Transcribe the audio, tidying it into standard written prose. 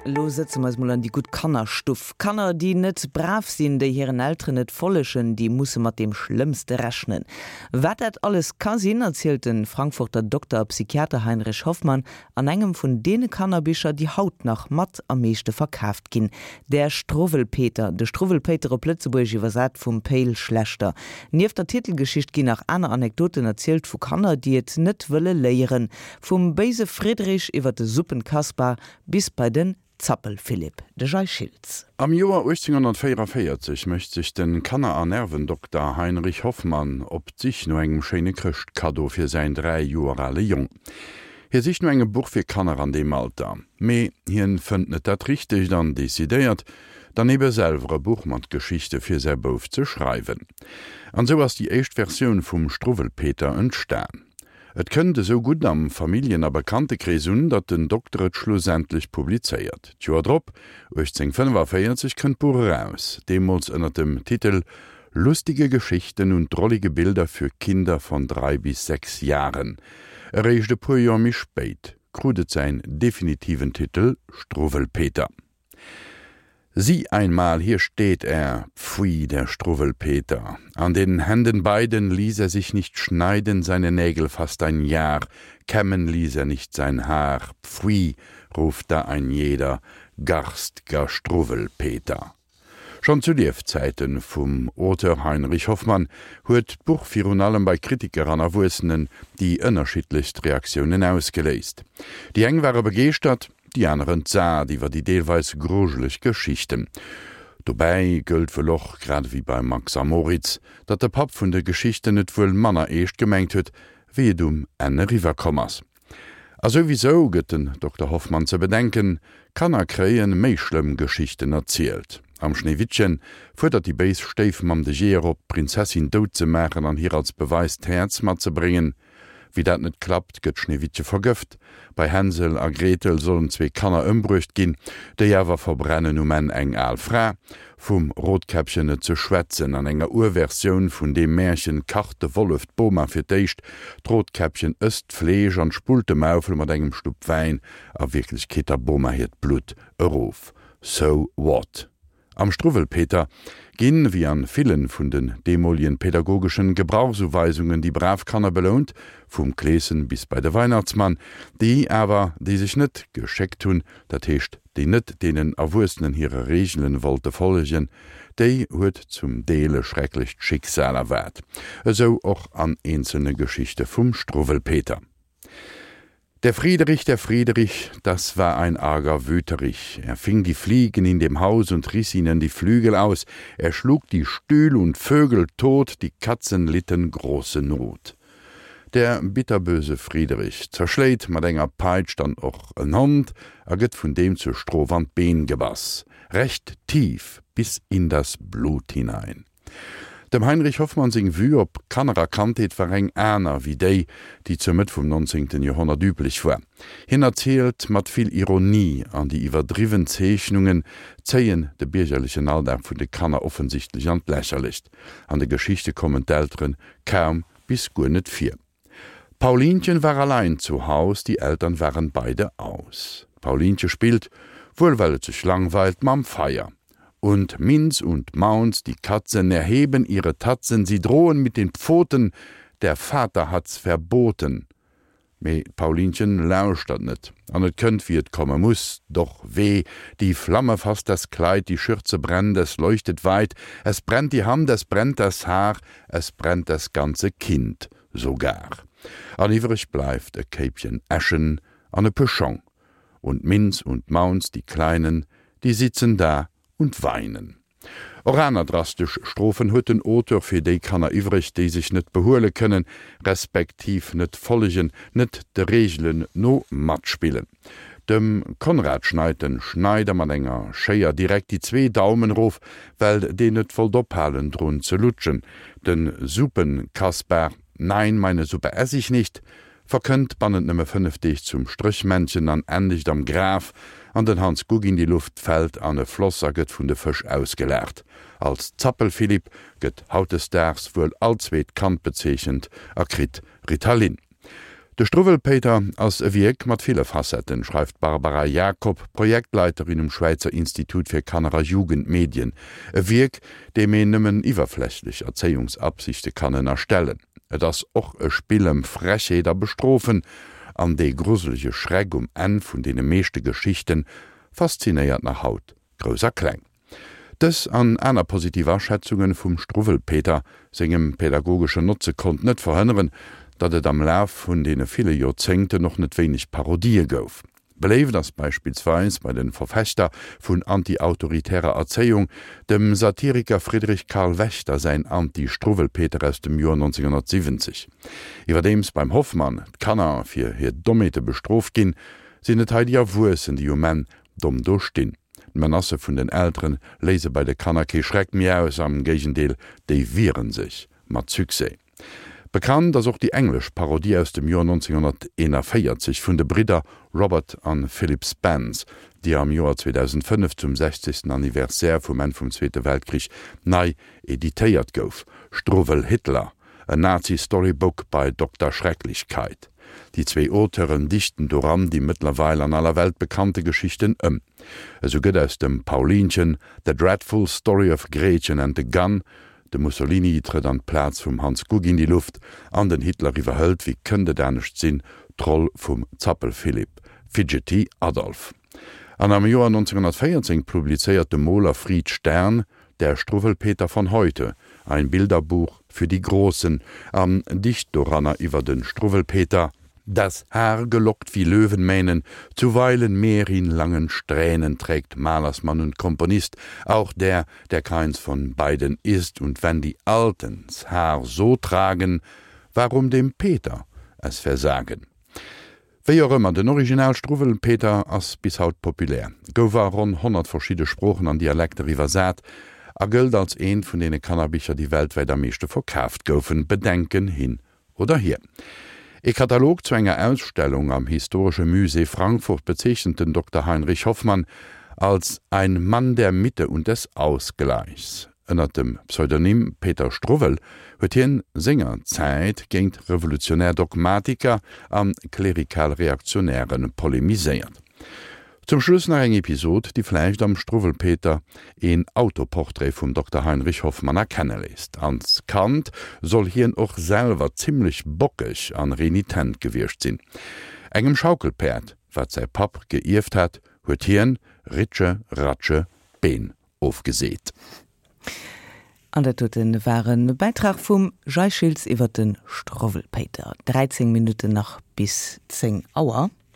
Elo sëtze mer eis mol an déi gutt Kannerstuff. Kanner, déi net brav sinn, déi hiren Elteren net follegen, déi musse mat deem Schlëmmste rechnen. Wat dat alles ka sinn, erzielt de Frankfurter Dokter a Psychiater Heinrich Hoffmann an engem vun deene Kannerbicher, déi haut nach mat am meeschte verkaaft ginn, Der Struwwelpeter, De Struwwelpéiter op Lëtzebuergesch iwwersat vum Pe'l Schlechter. Nieft der Titelgeschicht ginn nach aner Anekdoten erzielt vu Kanner, déi et net wëlle léieren. Vum béise Friedrich iwwer de Suppenkaspar bis bei den Zappelphilipp. De Jay Schiltz. Am Joer 1844 mécht sech de Kanner a Nervendokter Heinrich Hoffmann op d'Sich no engem schéine Chrëschtkaddo fir säin 3 Joer ale Jong. Hie sicht no engem Buch fir Kanner an deem Alter, mee hien fënnt net dat richtegt an decidéiert dann ebe selwer e Buch mat Geschichte fir säi Bouf ze schreiwen. An sou ass déi éischt Versioun vum Struwwelpeter entstan. Et kënnt esou gutt am Familljen a Bekanntekrees un, datt den Dokter et schlussendlech publizéiert. D'Joer drop, 1845, kënnt d'Buch eraus, deemools ënner dem Titel Lustige Geschichten und drollige Bilder für Kinder von drei bis sechs Jahren. Eréischt e puer Joer méi spéit krut et säin definitiven Titel Struwwelpeter. Sieh einmal, hier steht er, pfui, der Struwwelpeter. An den Händen beiden ließ er sich nicht schneiden seine Nägel fast ein Jahr, kämmen ließ er nicht sein Haar, pfui, ruft da ein jeder, garst'ger Struwwelpeter. Schonn zu Liefzäite vum Auteur Heinrich Hoffmann huet d'Buch virun allem bei Kritiker an Erwuessenen déi ënnerschiddlechst Reaktiounen ausgeléist. Déi eng ware begeeschtert, déi aner entsat iwwer déi deelweis grujeleg Geschichten. Dobäi gëllt wuel och, grad ewéi beim Max a Moritz, datt de Papp vun de Geschichten et wuel manner eescht gemengt huet, wéi et um Enn eriwwer komm ass. A souwisou gëtt den Dokter Hoffmann ze bedenken, Kanner kréie méi schlëmm Geschichten erzielt. Am Schneewittchen fuerdert déi béis Stéifmamm de Jeeër op, d'Prinzessin dout ze maachen an hir als Beweis d'Häerz matzebréngen. Wéi dat net klappt, gëtt Schneewittche vergëft. Bei Hänsel a Gretel sollen zwee Kanner ëmbruecht ginn, déi awer verbrennen um Enn eng al Fra. Vum Rotkäppchen net ze schwätzen. An enger Urversioun vun deem Märchen kacht de Wollef d'Boma fir d'éischt, d'Rotkäppchen ësst d'Fleesch an spullt de Maufel mat engem Schlupp Wäin, a Wierklechkeet der Boma hiert Blutt erof. So what? Am Struwwelpeter ginn, wéi an villen vun den deemolien pädagogeschen Gebrauchsuweisungen, déi brav Kanner belount, vum Kleeschen bis bei de Weihnachtsmann, déi awer, déi sech net geschéckt hunn, dat heescht, déi net deenen Erwuessenen hire Reegelen wollte follegen, déi huet zum Deel e schrecklecht Schicksal erwaart. Esou och an eenzelne Geschichte vum Struwwelpeter. Der Friederich, der Friederich, das war ein arger Wüterich. Er fing die Fliegen in dem Haus und riss ihnen die Flügel aus. Er schlug die Stühl und Vögel tot, die Katzen litten große Not. Der bitterböse Friederich zerschléit mat enger Peitsch dann och en Hond a gëtt vun deem zur Strof an d'Been gebass, recht tief bis in das Blut hinein. Dem Heinrich Hoffmann seng Vue op Kanner a Kandheet war eng aner wéi déi, déi zur Mëtt vum 19. Joerhonnert üblech war. Hien erzielt mat vill Ironie an déi iwwerdriwwen Zeechnungen zéien de biergerlechen Alldag vun de Kanner offensichtlech an d'Lächerlecht. An de Geschichte kommen d'Eltere kaum bis guer net vir. Paulinchen war allein zu Haus, die Eltern waren beide aus. D'Paulinche spillt, wuel well et sech langweilt, mam Feier. Und Minz und Maunz, die Katzen, erheben ihre Tatzen, sie drohen mit den Pfoten, der Vater hat's verboten. Mee d'Paulinchen lauschtert net, an et kënnt wéi et komme muss, Doch weh, die Flamme fasst das Kleid, die Schürze brennt, es leuchtet weit, es brennt die Hand, es brennt das Haar, es brennt das ganze Kind sogar. An iwwreg bleift e Kéipchen Äschen an e puer Schong. Und Minz und Maunz, die Kleinen, die sitzen da und weinen. Och aner drastesch Strofen huet den Auteur fir déi Kanner iwwreg, déi sech net behuele kënnen, respektiv net follegen, net de Reegelen no matspillen. Dem Konrad schneit den Schneider mat enger Schéier direkt déi zwee Daumen erof, well deen net wollt ophalen drun ze lutschen. Den Suppenkaspar, Nein, meine Suppe ess ich nicht, verkënnt bannent nëmme 5 Deeg zum Stréchmännchen an endegt am Graf, an den Hans Guck in die Luft fält an e Floss a gëtt vun de Fësch ausgelaacht. Als Zappelphilipp gëtt hautdesdaags wuel all zweet Kand bezeechent a kritt Ritalin. De Struwwelpéiter ass e Wierk mat ville Facetten, schreift d'Barbara Jakob, Projektleiterin um Schwäizer Institut fir Kanner a Jugendmedien. E Wierk, deem een nëmmen iwwerflächlech Erzéiungsabsichte kann ënnerstellen. Et ass och e Spill ëm Frechheet a Bestrofen, an dee gruselege Schreck um Enn vun deene meeschte Geschichte faszinéiert nach haut Grouss a Kleng. Dës an aner positiv Aschätzunge vum Struwwelpeter sengem pädagogeschen Notze konnt net verhënneren, datt et am Laf vun deene ville Joerzéngten och net wéineg Parodië gouf. Beléift ass beispillsweis bei de Verfechter vun anti-autoritärer Erzéiung dem Satiriker Friedrich Karl Wächter säin Anti-Struwwelpeter aus dem Joer 1970. Iwwerdeems beim Hoffmann d'Kanner fir hir Dommheete bestrooft ginn, sinn et hei déi Erwuessen, déi um Enn domm do stinn. D'Menacë vun den Eltere léise bei de Kanner kee Schreck méi aus, am Géigendeel, déi wiere sech mat Succès. Bekannt ass och déi englesch Parodie aus dem Joer 1941 vun de Bridder Robert an Philip Spence, déi am Joer 2005 zum 60. Anniversaire vum Enn vum Zweete Weltkrich nei editéiert gouf, Struwwel Hitler, A Nazi Storybook by Dokter Schrecklichkeit. Déi zwéi Auteuren dichten doran déi mëttlerweil an aller Welt bekannte Geschichten ëm. Esou gëtt aus dem Paulinchen The Dreadful Story of Gretchen and the Gun, de Mussolini trëtt an d'Plaz vum Hans Guck in die Luft an den Hitler iwwerhëlt, wéi kënnt et anescht sinn, d'Roll vum Zappelphilipp, Fidgety Adolf. An am Joer 1914 publizéiert de Moler Fried Stern Der Struwwelpeter von heute, ein Bilderbuch für die Großen an dicht doranner iwwer de Struwwelpeter, Das Haar gelockt wie Löwenmähnen, zuweilen mehr in langen Strähnen trägt Malersmann und Komponist, auch der, der keins von beiden ist, und wenn die Alten 's Haar so tragen, warum dem Peter es versagen? Wéi och ëmmer, den Original Struwwelpeter ass bis haut populär, gouf a ronn 100 verschidde Sproochen an Dialekter iwwersat a gëllt als eent vun deene Kannerbicher, déi weltwäit am meeschte verkaaft goufen, Bedenken hin oder hier. E Katalog zu enger Ausstellung am Historische Musée Frankfurt bezeechent den Dokter Heinrich Hoffmann als ein Mann der Mitte und des Ausgleichs. Ënnert dem Pseudonym Peter Struwwel huet hien senger Zäit géint revolutionär Dogmatiker a klerikal Reaktionäre polemiséiert. Zum Schluss nach eng Episod, déi vläicht am Struwwelpeter een Autoportrait vum Dokter Heinrich Hoffmann erkenne léisst. Als Kand soll hien och selwer zimmlech bockeg an renitent gewiescht sinn. Engem Schaukelpäerd, wat säi Papp geierft hat, huet hien, Ritsche Ratsche, d'Been ofgeseet. An dat doten war e Bäitrag vum Jay Schiltz iwwer de Struwwelpéiter. 13 Minutten nach bis 10 Auer.